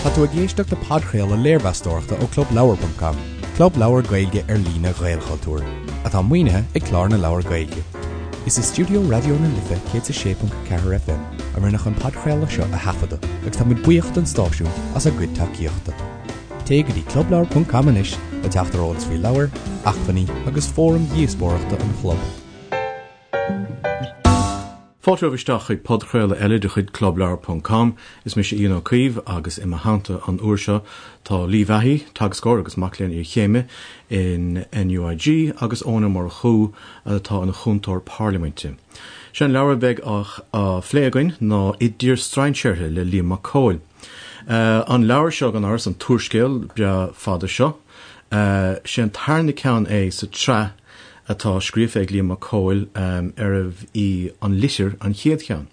Tá tú ag éisteacht le podchraoladh léirmheastóireachta ó ClubLeabhar.com, club leabhar Gaeilge ar líne Ghaelchultúir, atá maoinithe ag Clár na Leabhar Gaeilge. Is i stiúideo Raidió na Life 106.4 FM a rinneadh an podchraoladh seo a thaifeadadh agus táimid buíoch don stáisiún as a gcuid tacaíochta. Téigh go dtí clubleabhar.com anois le teacht ar eolas faoi leabhair, acmhainní agus fóraim dhíospóireachta an chlub. Fáilte romhaibh isteach chuig podchraoladh eile de chuid Clubleabhar ponc com. Is mise Ian Ó Caoimh agus i mo theannta an uair seo tá Lee Vahey, teagascóir agus mac léinn iarchéime in NUIG agus Eoin Ó Murchú atá ina chúntóir parlaiminte. Sé an leabhar a bheidh á phlé againn ná I dTír Strainséartha le Liam Mac Cóil. An leabhar seo gan amhras, an t-úrscéal breá fada seo, sé an tarna ceann é sa tsraith atá scríofa ag Liam Mac Cóil arbh í An Litir an chéad cheann.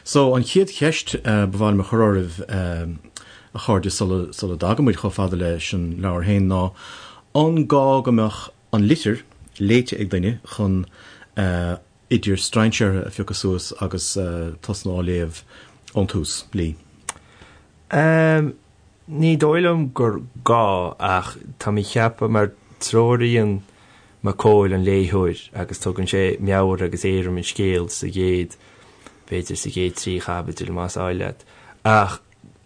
So, an chéad cheist ba mhaith liom a chur oraibh, a chairde, sula sula dtagann muid chomh fada leis an leabhar féin ná, an gá go mbeadh An Litir léite ag duine chun I dTír Strainséartha a phiocadh suas agus tosnú á léamh ón tús? Lee. Ní dóigh liom gur gá ach tá mé ag ceapadh mar treoraíonn Mac Cóil an léitheoir agus tugann sé meabhair agus éirim an scéil sa gcéad, b'fhéidir sa gcéad trí chaibidil más áil leat. Ach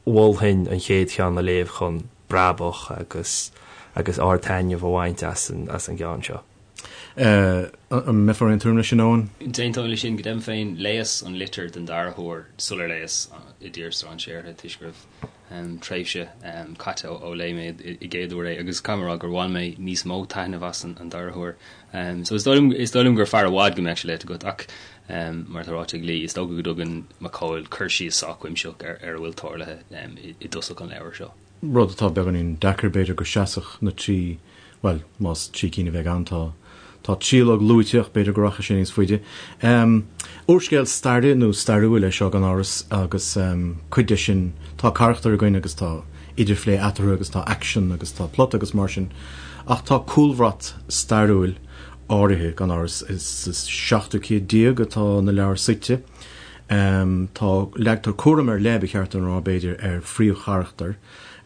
mholfainn an chéad cheann a léamh chun brabach agus agus ard-taitneamh a bhaint as an as an gceann seo. An mbeifeá ar aon tuairim leis sin, Eoin? D'aontóinn leis sin. Go deimhin féin, léas an litir den dara huair sular léas I dTír Strainséartha toisc go raibh tréimhse caite ó léigh mé i gcéad uair é agus caithfidh mé a rá gur bhain mé níos mó taitneamh as an dara huair. So is dóigh liom, is dóigh liom gur fearr i bhfad go mbeadh sé léite agat ach mar atá ráite ag Lee, is dócha go dtugann Mac Cóil cur síos sách cuimsitheach ar ar a bhfuil tarlaithe i dtosach an leabhair seo. Rud atá beagáinín deacair b'fhéidir go seasfadh na trí Bhuel, más trí cinn a bheidh ann, tá tá tríológ luaite ach b'fhéidir go rachaidh sé níos faide. Úrscéal staire nó stairiúil é seo gan amhras agus cuid de sin, tá carachtair againn agus tá idirphlé eatarthu agus tá aicsean agus tá plota agus mar sin ach tá cúlbhrat stairiúil áirithe gan amhras. Is sa seachtú céad déag atá na leabhair suite. Tá, leagtar cúram ar leith, ba cheart dom a rá b'fhéidir, ar phríomhcharachtar,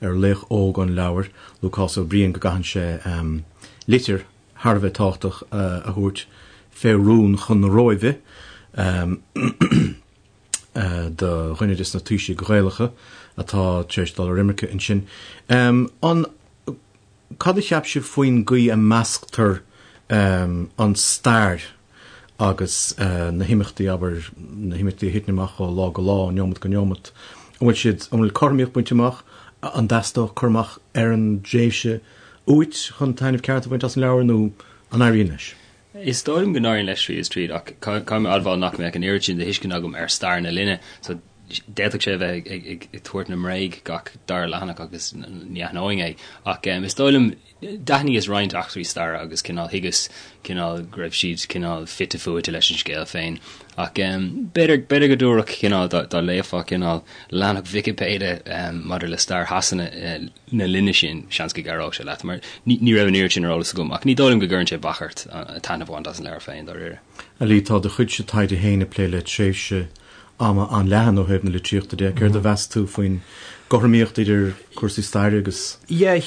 ar laoch óg an leabhair, Lúcás Ó Briain, go gcaitheann sé litir thar a bheith tábhachtach a thabhairt fé rún chun na Róimhe do dhuine des na taoisigh Ghaelacha atá tar éis dul ar imirce ansin. An, cad a cheap sibh faoin gcaoi a measctar an stair agus na himeachtaí, abair, na himeachtaí a thiteann amach ó lá go lá, ó neomat go neomat, an bhfuil siad, an bhfuil cothromaíocht bainte amach, an dteastódh cur amach ar an dtréimhse uait chun taitneamh ceart a bhaint as an leabhar nó an éiríonn leis? Is dóigh liom go n-éiríonn leis tríd is tríd ach caithfidh mé a admháil nach mbeadh an oiread sin de thuiscint agam ar stair na linne so d'fhéadfadh sé a bheith ag tabhairt na mbréag gach dara leathanach agus ní aithneoinn é ach is dóigh liom D'aithníos roinnt eachtraí staire agus cineál thuigeas cineál go raibh siad cineál fite fuaite leis an scéal féin. Ach b'fhéidir, b'fhéidir go dtabharfadh cineál, dá, dá léifeá cineál leathanach Vicipéide maidir le stair Shasana na linne sin, seans go gcabhródh sé leat, mar ní, ní raibh an oiread sin ar eolas agam. Ach ní dóigh liom go gcuireann sé bac ort taitneamh a bhaint as an leabhar féin, dáiríre. A Lee, tá do chuidse taighde féin ag plé le tréimhse ama an-leathan ó thaobh na litríochta de. Céard a mheas tú faoin gcothromaíocht idir cúrsaí staire agus. Yeah,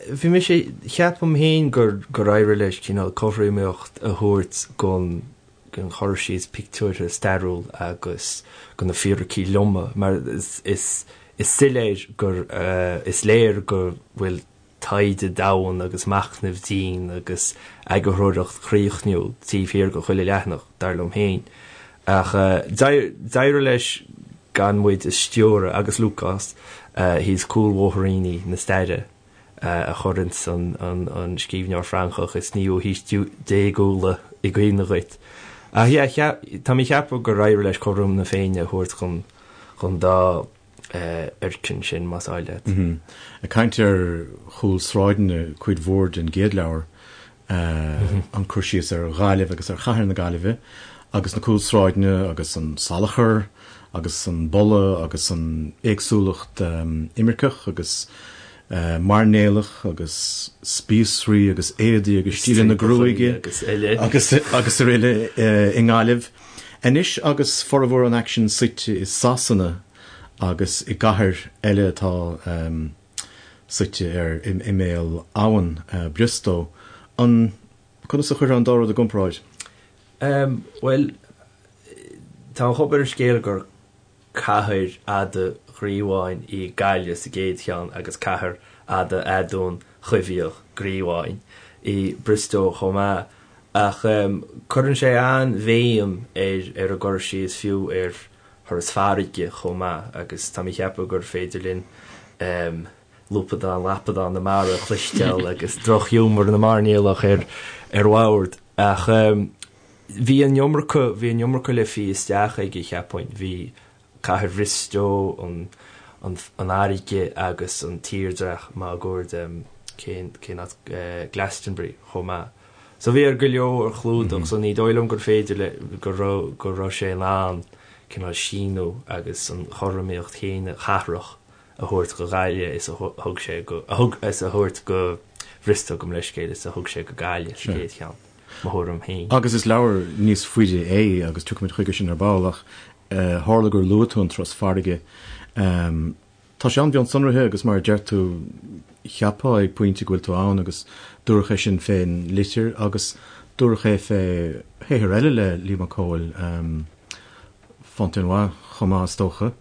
bhí mise, ceapaim féin gur gur éirigh leis cineál cothromaíocht a thabhairt gon gon chur síos pictiúrtha stairiúil agus go na fíricí loma mar is is is soiléir gur is léir go bhfuil taighde domhain agus machnamh dian agus eagarthóireacht chríochnúil taobh thiar de chuile leathanach, dar liom féin. Ach d'éirigh leis gan muid a stiúradh agus Lúcás thíos cúlbhóithríní na staire a chuireanns an scríbhneoir Francach is naoú haois déagúla i gcuimhne dhuit. Ach yeah, tá mé ag ceapadh gur éirigh leis cothrom na Féinne a thabhairt chun dá fhoirceann sin, más áil leat. Ag caint ar chúlsráideanna, cuid mhór den gcéad leabhar, an cur síos ar Ghaillimh agus ar chathair na Gaillimhe agus na cúlsráideanna agus an salachar agus an boladh agus an éagsúlacht imirceach agus mairnéalach agus spíosraí agus éadaí agus stíleanna gruaige agus agus araile i nGaillimh. Anois agus formhór an aicsin suite i Sasana. agus i gcathair eile atá suite ar imeall abhann, Briostó. An, conas a chuirfeá an dá rud i gcomparáid? Bhuel, tá an chuma ar an scéal gur cathair fhada ghríobháin í Gaillimh sa gcéad cheann agus cathair fhada aduain choimhthíoch gríobháin í Briostó chomh maith. Ach cuireann sé an-bhéim ar ar an gcur síos fiú ar thuras farraige chomh maith agus tá mé ag ceapadh gur féidir linn lúpadán lapadán na mara a chloisteáil agus drochghiúmar na mairnéalach ar ar bhord. Ach bhí an iomarca, bhí an iomarca le fí isteach aige, cheapfainn. Bhí cathair Bhriostó, an an fharraige agus an tírdhreach máguaird, cén cén áit, Glastonbury chomh maith. So bhí air go leor a chlúdach so ní dóigh liom gur féidir le, go raibh, go raibh sé in ann cineál síniú agus an chothromaíocht chéanna chathrach a thabhairt go Gaillimh is a thug sé go, a thug, is a thabhairt go Bhriostó gabh mo leithscéal is a thug sé go Gaillimh sa gcéad cheann, mo thuairim féin. Agus is leabhar níos faide é agus tiocfaimid chuige sin ar ball ach tharla gur luaigh tú an turas farraige. Tá sé an-mhionsonraithe agus mar a deir tú, cheapfá ag pointe go bhfuil tú ann agus dúradh é sin fén litir agus dúradh é fé shaothar eile le Liam Mac Cóil, Fontenoy chomh maith is dócha.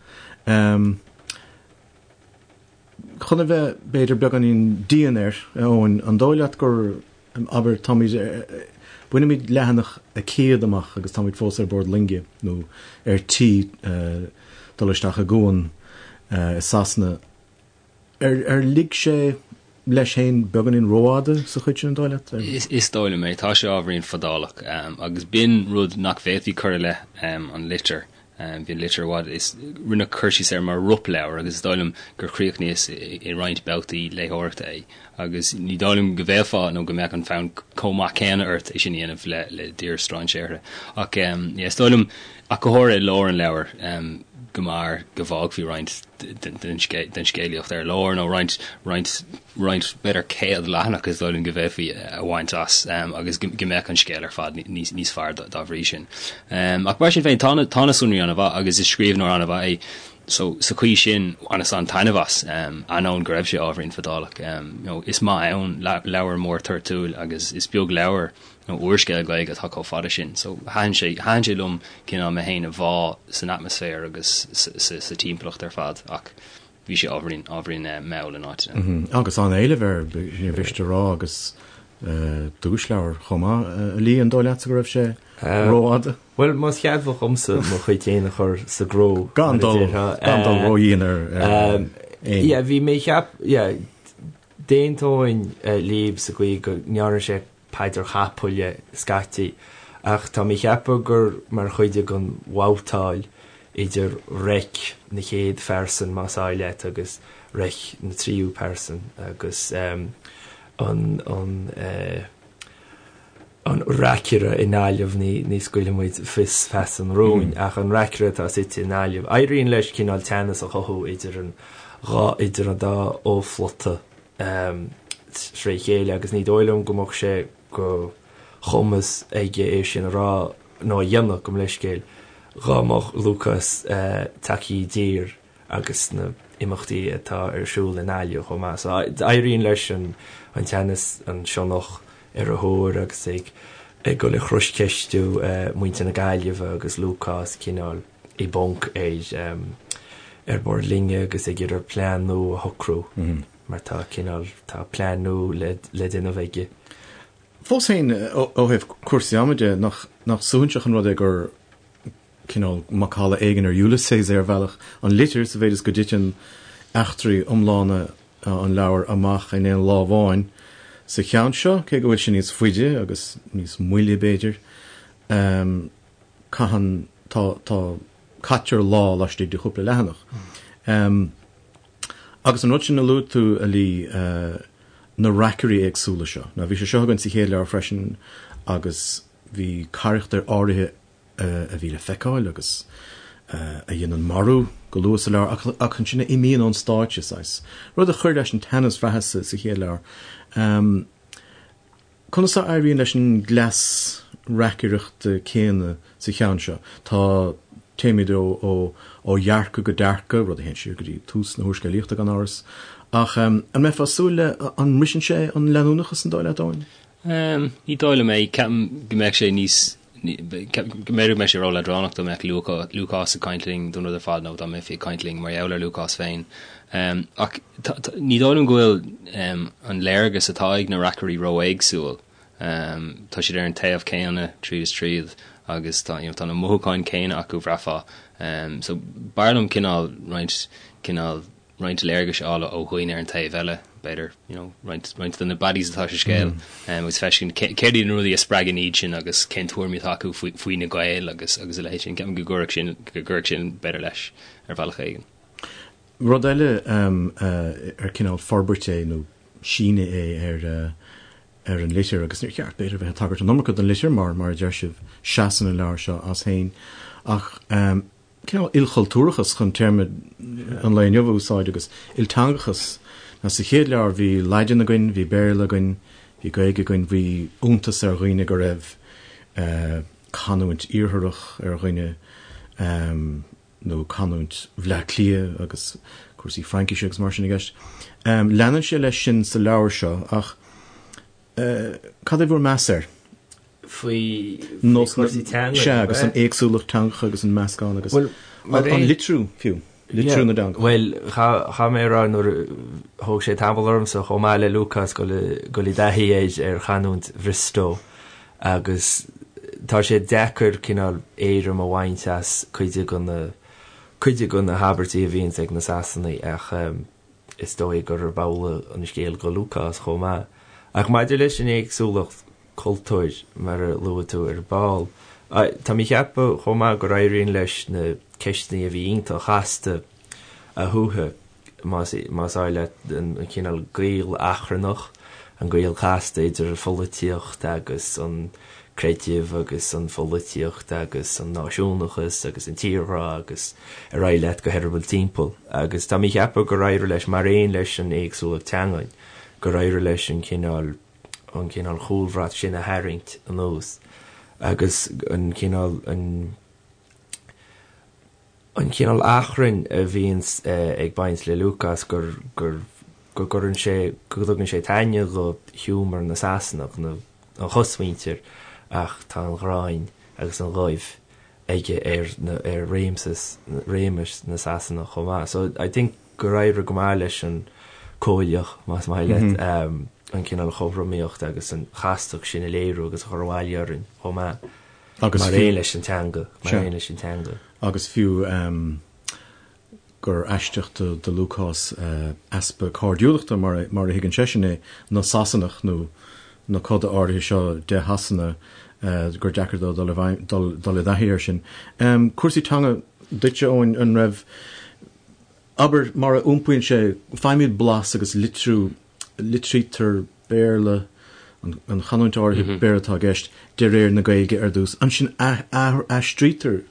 Chun a bheith, b'fhéidir, beagáinín dian air, a Eoin, an dóigh leat gur, abair, táimid, bainimid leathanach a 100 amach agus táimid fós ar bord loinge nó ar tí dul isteach i gcuan i Sasana. Ar lig sé leis féin beagáinín rófhada sa chuid sin, an dóigh leat? Is dóigh liom é. Tá sé ábhairín fadálach agus b'in rud nach bhféadfaí cur i leith an litir. Bhí an litir i bhfad, is rinneadh cur síos air mar ropleabhar agus is dóigh liom gur chríochnaíos i roinnt babhtaí léitheoireachta é agus ní dóigh liom go bhféadfá nó go mbeadh an fonn chomh maith céanna ort é sin a dhéanamh le le dTír Strainséartha. Ach yeah, is dóigh liom, ach go háirithe i lár an leabhair, go mb'fhearr go bhfágfaí roinnt den scéalaíocht ar lár nó roinnt, roinnt, roinnt b'fhéidir 100 leathanach is dóigh liom go bhféadfaí a bhaint as agus go mbeadh an scéal ar fad níos, níos fearr dá bhrí sin. Ach mar sin féin, tá na, tá na sonraí an-mhaith agus is scríbhneoir an-mhaith é so sa chaoi sin bhaineas an-taitneamh as, ainneoin go raibh sé ábhairín fadálach. You know, is maith ann leabhar mór toirtiúil agus is beag leabhar nó úrscéal Gaeilge atá chomh fada sin. So thaitin sé, thaitin sé liom cineál mé féin a bhá san atmaisféar agus sa timpeallacht ar fad ach bhí sé ábhairín, ábhairín mall in áiteanna. Agus an-éileamh air, níor mhiste a rá, agus duaisleabhar chomh maith. A Lee, an dóigh leatsa go raibh sé rófhada? Bhuel, más ceadmhach dhomsa mo chuid féin a chur sa gcró, Gan dul, gan dul ródhian ar éinne. Yeah, bhí mé ag ceap, yeah, d'aontóinn libh sa gcaoi go ndearna sé paidir chapaill dhe scaití, ach tá mé ag ceapadh gur mar chuid den bhabhtáil idir reic na chéad phearsan, más áil leat, agus reic na tríú pearsan, agus an an an reacaire i nGaillimh, ní ní scaoilfidh muid fios feasa an rúin, ach an reacaire atá suite i nGaillimh, éiríonn leis cineál teannas a chothú idir an dhá idir an dá fho-phlota. tré chéile agus ní dóigh liom go mbeadh sé de chumas aige é sin a rá nó a dhéanamh, gabh mo leithscéal, dhá mbeadh Lúcás tagtha i dtír agus na imeachtaí atá ar siúl i nGaillimh chomh maith. So éiríonn leis an teannas, an sionnach ar a thóir agus ag ag dul ag croscheistiú muintir na Gaillimhe agus Lúcás cineál i bponc ar ar bord loinge agus ag iarraidh plean nua a shocrú mar tá cineál, tá plean nua le le déanamh aige. Fós féin, ó thaobh cúrsaí ama de, nach nach suaithinseach an rud é gur cineál macalla éigin ar Ulysses é ar bhealach, an litir, sa mhéid is go dtiteann eachtraí iomlána an leabhair amach in aon lá amháin sa cheann seo, cé go bhfuil sé níos faide agus níos moille b'fhéidir. Caitheann, tá, tá, caitear lá laistigh de chúpla leathanach. Agus an rud sin a luaigh tú, a Lee, na reacairí éagsúla seo. Now bhí sé seo againn sa chéad leabhar freisin agus bhí carachtair áirithe a bhí le feiceáil agus a dhéanann marú go luath sa leabhar ach ansin a imíonn ón stáitse, saghas. Rud a chuir leis an teannas bhraitheas sa chéad leabhar. Conas a éiríonn leis an gcleas reacaireachta céanna sa cheann seo? Tá. Téimid ó ó dhearcadh go dearcadh, rud a théann siar go dtí tús na húrscéalaíochta gan amhras. Ach an mbeifeá ag súil le, an mbriseann sé an leanúnachas an dóigh leat, Eoin? Ní dóigh liom é. Ceapaim go mbeadh sé níos, ceapaim go mb'fhéidir go mbeadh sé ró-leadránach dá mbeadh Lúcás ag caint linn don rud ar fad nó dá mbeifí ag caint linn mar gheall ar Lúcás féin. Ach ní dóigh liom go bhfuil an léargas atá ag na reacairí ró-éagsúil. Tá siad ar an taobh céanna tríd is tríd agus tá, you know, tá na mothúcháin céanna acu, bhraithfeá. So b'fhearr liom cineál roinnt, cineál roinnt léargais a fháil ó dhaoine ar an taobh eile, b'fhéidir, you know, roinnt, roinnt de na baddies atá sa scéal agus feiscint céard iad na rudaí a spreagann iad sin agus cén tuairimí atá acu faoi, faoi na Gaeil agus, agus a leithéid sin. Ceapaim go gcuirfeadh sin, go gcuirfeadh sin b'fhéidir leis ar bhealach éigin. Rud eile ar cineál forbairt é nó síneadh é ar ar an litir, agus níor cheart, b'fhéidir, bheith ag tagairt an iomarca don litir mar, mar a deir sibh, seasann an leabhar seo as féin. Ach cineál ilchultúrachas, chun téarma an lae inniu a úsáid, agus ilteangachas. Now sa chéad leabhar bhí Laidin againn, bhí Béarla againn, bhí Gaeilge againn, bhí iontas ar dhaoine go raibh canúint iartharach ar dhuine, nó canúint Bhleá Cliath agus cúrsaí Fraincise agus mar sin i gceist. Leanann sé leis sin sa leabhar seo ach cad é bhur meas air? Faoi chúrsaí teanga? Sea, agus an éagsúlacht teangacha agus an meascán agus an litriú fiú, litriú na dteangacha. Bhuel, chaithfidh mé a rá nuair a thóg sé tamall ormsa chomh maith le Lúcás dul i dtaithí ar chanúint Bhriostó agus tá sé deacair cineál éirim a bhaint as cuid de na cuid de na habairtí a bhíonns ag na Sasanaigh ach is dóigh gurb amhlaidh an scéal go Lúcás chomh maith. Ach maidir leis an éagsúlacht cultúir, mar a luaigh tú ar ball, tá mé ag ceapadh chomh maith gur éiríonn leis na ceisteanna a bhí iontach casta a shuaitheadh. más áil leat, an cineál gaol achrannach, an gaol casta idir an pholaitíocht agus an creideamh agus an pholaitíocht agus an náisiúnachas agus an tírghrá agus ar aghaidh leat go heireaball timpeall. Agus tá mé ag ceapadh gur éirigh leis, mar aon leis an éagsúlacht teangan, gur éirigh leis an cineál, an cineál chúlbhrat sin a tharraingt anuas agus an cineál, an. an cineál achrainn a bhíonns ag baint le Lúcás gur, gur, go gcuireann sé, go dtugann sé taitneamh do ghiúmar na Sasanach, na, an chosmhuintir ach tá an ghráin agus an ghoimh aige ar na, ar réimseas, réimeas na Sasanach chomh maith. So I think gur éirigh go maith leis an Cóilíoch, más maith leat, an cineál chothromaíocht agus an chastacht sin a léiriú agus a chur abhaile orainn chomh maith. Agus mar aon leis an teanga, mar aon leis an teanga. Agus fiú gur aisteach do Lúcás easpa cairdiúlachta, mar a thuigeann seisean é, na Sasanach nó na coda áirithe seo de Shasana, gur deacair dó dul i dtaithí air sin. Cúrsaí teanga duitse, Eoin, an raibh, abair, mar a iompaíonn sé, faighimid blas agus litriú, litrítear Béarla, an chanúint áirithe Béarla atá i gceist, de réir na Gaeilge ar dtús. Ansin aistrítear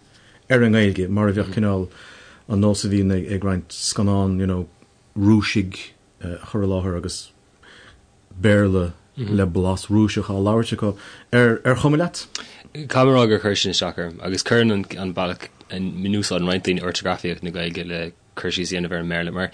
ar an nGaeilge, mar a bheadh cineál an nós a bhíonn ag roinnt scannán, you know, Rúisigh a chur i láthair agus Béarla le blas Rúiseach á labhairt acu. Ar chuma leat? Caithfidh mé a rá gur chuir sin isteach orm agus cuireann an bealach a n-úsáideann roinnt daoine ortagrafaíocht na Gaeilge le cur síos a dhéanamh ar an mBéarla, mar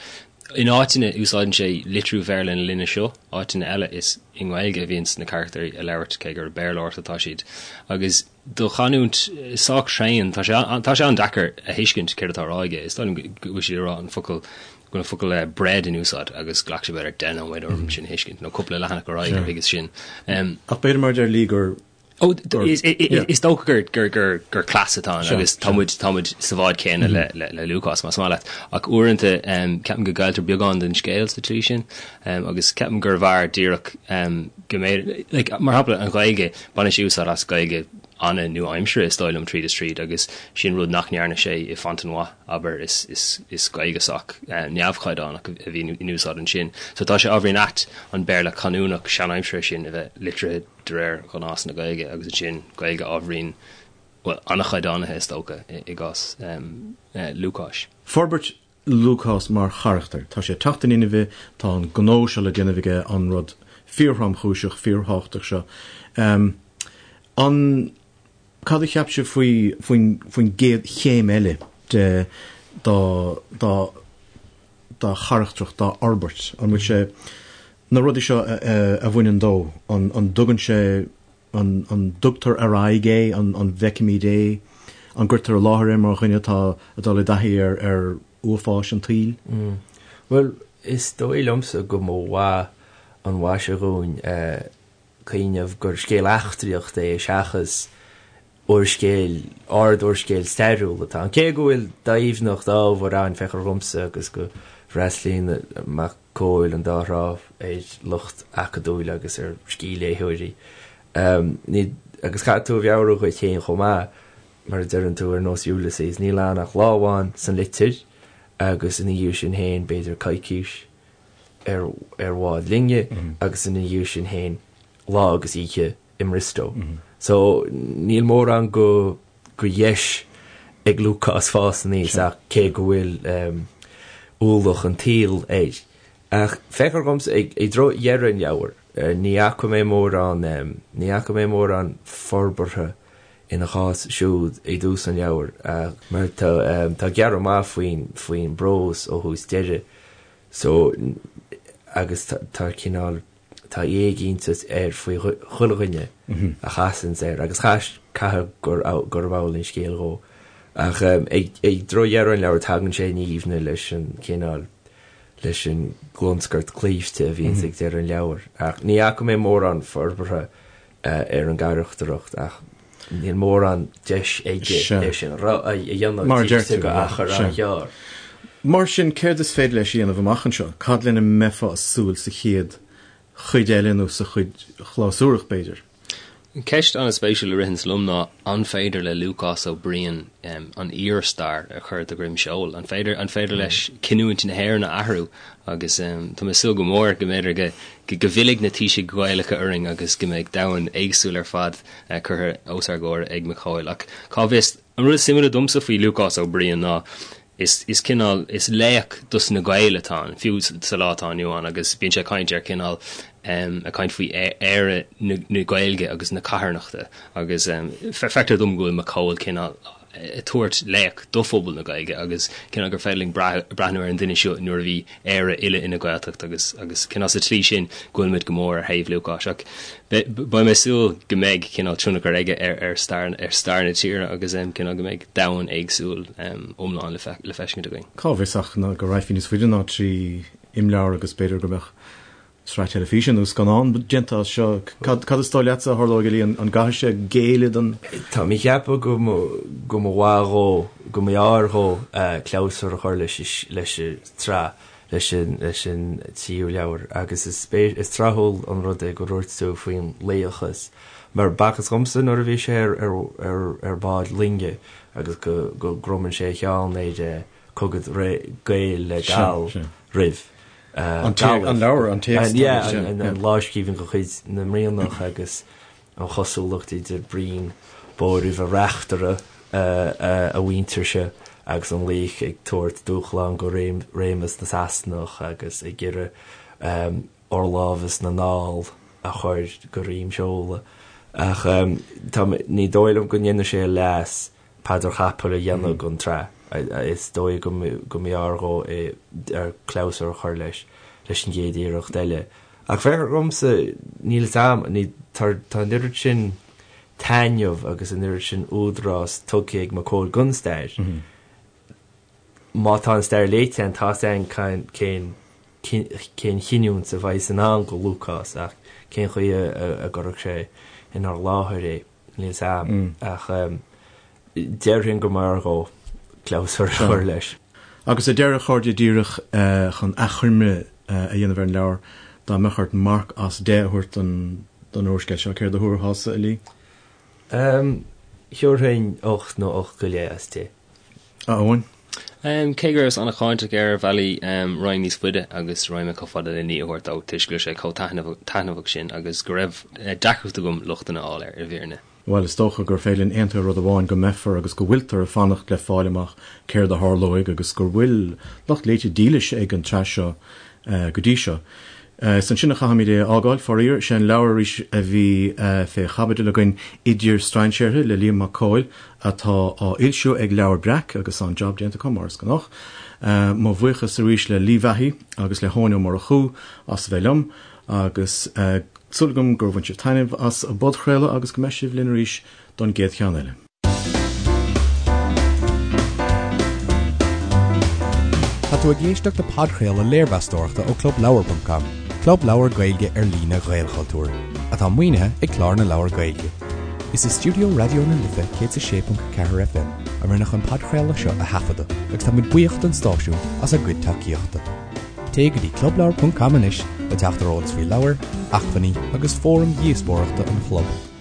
in áiteanna úsáideann sé litriú Bhéarla na linne seo, áiteanna eile is i nGaeilge a bhíonns na carachtair ag labhairt cé gur Béarlóireacht atá siad. Agus do chanúint sách tréan, tá sé tá sé an-deacair a thuiscint céard atá á rá aige. Is dóigh liom go bhfuil siad ag rá an focal go bhfuil an focal bread in úsáid agus ghlac sé b'fhéidir 10 nóiméad orm sin a thuiscint, nó cúpla leathanach ar aghaidh gur thuigeas sin. Ach b'fhéidir mar a deir Lee gur Ó, is dócha gur cleas atá ann agus tá muid tá muid sa bhád céanna le Lúcás más maith leat. Ach uaireanta ceapaim go gcailltear beagán den scéal sa tslí sin agus ceapaim gurbh fhearr díreach go mbeidh, like, mar shampla an Ghaeilge, baineann sé úsáid as Gaeilge an-nua-aimseartha is dóigh liom tríd is tríd agus sin rud nach ndearna sé i Fontenoy, abair, is Gaeilge sách neamhchaighdeánach a bhí in úsáid ansin. So tá sé ábhairín ait an Béarla canúnach seanaimseartha sin a bheith litrithe de réir ghnás na Gaeilge agus ansin Gaeilge ábhairín, bhuel, an-chaighdeánaithe is dócha i gcás Lúcáis. Forbairt Lúcás mar charachtar. Tá sé ag teacht in inmhe, tá an gnó seo le déanamh aige, an rud fíorthromchúiseach, fíorthábhachtach seo. An. Cad a cheap sibh faoi faoin faoin gcéad chéim eile de dá dá dá charachtracht, dá fhorbairt? An bhfuil sé na rudaí seo a bhaineann dó, an an dtugann sé an an dtugtar ar aghaidh é, an an bhfeicimid é, an gcuirtear i láthair é mar dhuine atá ag dul i dtaithí ar ar uafáis an tsaoil? Bhuel, is dóigh liomsa go mba mhaith an mhaise dhúinn cuimhneamh gur scéal eachtraíochta é seachas úrscéal, ard-úrscéal stairiúil atá ann. Cé go bhfuil doimhneacht ábhair ann, feictear dhomsa, agus go bhfreastlaíonn Mac Cóil an dá thrá ar lucht acadúil agus ar scíthléitheoirí. Ní, agus caithfidh tú a mheabhrú dhuit féin chomh maith, mar a deireann tú, ar nós Ulysses, níl ann ach lá amháin san litir agus ina dhiaidh sin féin b'fhéidir coicís ar ar bhád loinge agus ina dhiaidh sin féin lá agus oíche i mBriostó. So níl mórán go go dheis ag Lúcás fás aníos ach cé go bhfuil ualach an tsaoil air. Ach feictear dhomsa ag i dtreo dheireadh an leabhair, ní fhaca mé mórán ní fhaca mé mórán forbartha ina chás siúd i dtús an leabhair mar tá tá gearradh maith faoin faoin bprós ó thús deireadh so agus tá cineál tá éiginnteacht air faoi chuile dhuine a chasanns air agus caithfidh gurb amhlaidh an scéal dhó. Ach ag dtreo dheireadh an leabhair tagann sé in aoibhne leis an cineál leis an gclonscairt claimhte a bhíonns ag deireadh an leabhair. Ach ní fhaca mé mórán forbartha ar an gcarachtracht ach níl mórán deis aige é sin a dhéanamh Mar a deir tú, go achar an-ghearr. Mar sin, céard is féidir leis a dhéanamh amach anseo? Cad lena mbeifeá ag súil sa chéad chuid eile nó sa chuid chlabhsúrach, b'fhéidir? Ceist an-spéisiúil a ritheanns liom ná an féidir le Lúcás Ó Briain an fhíorstair a chur de dhroim seoil? An féidir an féidir leis cinniúint na hÉireann a athrú? Agus tá mé ag súil go mór go mb'fhéidir go go bhfillfidh na taoisigh Ghaelacha orainn agus go mbeidh domhan éagsúil ar fad curtha os ár gcomhair ag Mac Cóil. Ach cá bhfios? An rud is suimiúla domsa faoi Lúcás Ó Briain ná is is cineál, is laoch dos na Gaeil atá ann, fiú sa lá atá inniu ann, agus bíonn sé ag caint ar cineál, ag caint faoi Éire na Gaeilge agus na carthanachta agus feictear dom go bhfuil Mac Cóil cineál ag tabhairt laoch do phobal na Gaeilge agus cineál gur féidir linn breathnú ar an duine seo nuair a bhí Éire uile ina Gaeltacht agus agus cineál sa tslí sin go bhfuil muid go mór ar thaobh Lúcáis ach beidh mé ag súil go mbeidh cineál tionchar aige ar ar stair ar stair na tíre agus cineál go mbeidh domhan éagsúil iomlán le le feiscint againn. Cá bhfios ach go raghfaí níos faide ná 3 imleabhar agus b'fhéidir go mbeadh sraith teilifíse nó scannán déanta as seo. Cad is dóigh leatsa a tharlóidh, a Lee? An gcaithfidh sé géilleadh don. Tá mé ag ceapadh go go mba mhaith dhó, go mb'fhearr dhó clabhsúr a chur leis leis an tsraith, leis an leis an tríú leabhar agus is is tráthúil an rud é go ndúirt tú faoin laochas mar b'fhacthas dhomsa nuair a bhí sé ar ar ar bhád loinge agus go go gcromann sé a cheann ar cogadh Gael le Gall roimh. An leabhar, an téacs. Yeah, an lámhscríbhinn de chuid na mBrianach agus an chosúlacht idir Brian Bóroimhe reachtaire a mhuintirse agus an laoch ag tabhairt dúshlán go réimeas na Sasanach agus ag iarraidh fhorlámhas na nDall a chur go droim seoil. Ach ní dóigh liom go ndéanfaidh sé a leas paidir chapaill a dhéanamh den tsraith. Is dóigh go mb'fhearr dhó é clabhsúr a chur leis leis an gcéad iarracht eile. Ach feictear dhomsa, níl fhios a'm, ní, tá tá an oiread sin taitneamh agus an oiread sin údarás tugtha ag Mac Cóil don stair. Má tá an stair léite a'inn, tá fhios a'inn cén cén chinniúint a bheidh in ann go Lúcás ach cén chaoi a gcuirfeadh sé inár láthair é. Níl fhios a'm ach déarfainn go mb'fhearr dhó clabhsúr a chur leis. Agus ar deireadh, a chairde, díreach chun achoimre a dhéanamh ar an leabhar, dá mbeadh ort marc as 10 a thabhairt don úrscéal seo, céard a thabharfása, a Lee? Thabharfainn 8 nó 8 go leith as 10. A Eoin? Cé go rabhas an-cháinteach air ar bhealaí, raghainn níos faide agus raghaidh mé chomh fada le 9 a thabhairt dó toisc go raibh sé chomh taitneamhach sin agus go raibh deacracht agam lochtanna a fháil air, i bhfírinne. Bhuel, is dócha gur féidir linn aontú ar rud amháin, go mbeifear agus go bhfuiltear ag fanacht le fáil amach céard a tharlóidh agus gur bhfuil lucht léite dílis ag an tsraith seo go dtí seo. Is ansin a chaithfimid é a fhágáil, faraor. Sé an leabhar arís a bhí fé chaibidil againn, Idir Strainséartha le Liam Mac Cóil, atá á fhoilsiú ag Leabhar Breac agus an-jab déanta acu, mar is gnách. Mo bhuíochas arís le Lee Vahey agus le hEoin Ó Murchú as a bheith liom agus súil agam gur bhain sibh taitneamh as an bpodchraoladh agus go mbeidh sibh linn arís don gcéad cheann eile. Tá tú ag éisteacht le podchraoladh léirmheastóireachta ó ClubLeabhar.com, club leabhar Gaeilge ar líne Ghaelchultúir, atá maoinithe ag Clár na Leabhar Gaeilge. Is i stiúideo Raidió na Life 106.4 FM a rinneadh an podchraoladh seo a thaifeadadh agus táimid buíoch don stáisiún as a gcuid tacaíochta. Téigh go dtí clubleabhar.com anois le teacht ar eolas faoi leabhair, acmhainní agus fóraim dhíospóireachta an chlub.